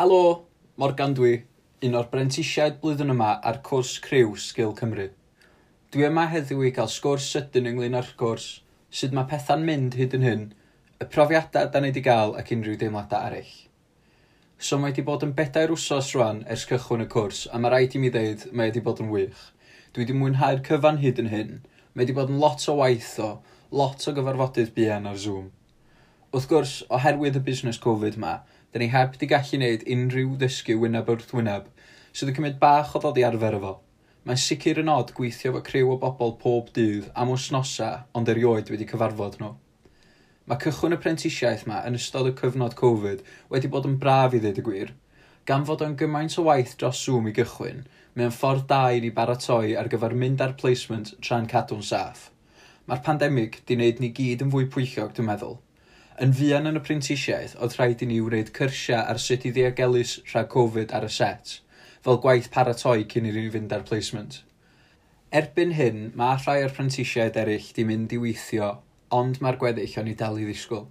Helo, Morgan dwi, un o'r brentisiaid blwyddyn yma ar cwrs criw Sgil Cymru. Dwi yma heddiw i gael sgwrs sydyn ynglyn â'r cwrs, sut mae pethau'n mynd hyd yn hyn, y profiadau da ni wedi gael ac unrhyw deimladau eraill. So mae wedi bod yn 4 wsos rwan ers cychwyn y cwrs, a mae rhaid i mi ddeud mae wedi bod yn wych. Dwi wedi mwynhau'r cyfan hyd yn hyn. Mae wedi bod yn lot o waith o, lot o gyfarfodydd buan ar Zoom. Wrth gwrs, oherwydd y busnes Covid ma, da ni heb di gallu gwneud unrhyw ddysgu wyneb wrth wyneb, sydd yn cymryd bach o ddod i arfer efo. Mae'n sicr yn od gweithio efo criw o bobl pob dydd am wythnosau, ond erioed wedi cyfarfod nhw. Mae cychwyn y prentisiaeth ma yn ystod y cyfnod Covid wedi bod yn braf i ddweud y gwir. Gan fod o'n gymaint o waith dros Zoom i gychwyn, mae'n ffordd da i ni baratoi ar gyfer mynd ar placement tra'n cadw'n saff. Mae'r pandemig di wneud ni gyd yn fwy pwyllog, dwi'n meddwl. Yn fuan yn y prentisiaeth, oedd rhaid i ni wneud cyrsiau ar sut i ddiogelu rhag Covid ar y set, fel gwaith paratoi cyn i ni fynd ar placement. Erbyn hyn, mae rhai o'r prentisiaid eraill di mynd i weithio, ond mae'r gweddill o'n i dal i ddisgwyl.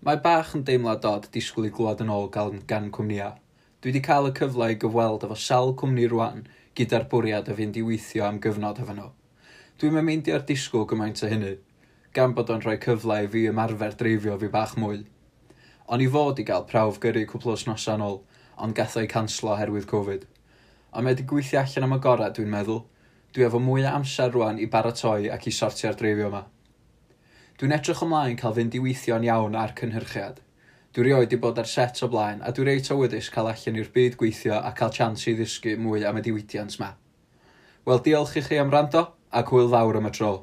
Mae bach yn deimlad od disgwyl i glywed yn ôl gan cwmnïau. Dwi wedi cael y cyfle i gyfweld efo sawl cwmni rwan gyda'r bwriad o fynd i weithio am gyfnod efo nhw. Dwi'm yn meindio'r disgwyl gymaint o hynny, gan bod o'n rhoi cyfle i fi ymarfer dreifio fi bach mwy. O'n i fod i gael prawf gyrru cwpl o wythnosau yn ôl, ond gath o'i canslo oherwydd Covid. Ond mae wedi gweithio allan am y gorau, dwi'n meddwl. Dwi efo mwy o amser rwan i baratoi ac i sortio'r dreifio yma. Dwi'n edrych ymlaen cael fynd i weithio'n iawn ar cynhyrchiad. Dwi rioed wedi bod ar set o blaen, a dwi reit awyddus cael allan i'r byd gweithio a cael chance i ddysgu mwy am y diwydiant ma. Wel, diolch i chi am wrando, ac hwyl fawr am y tro.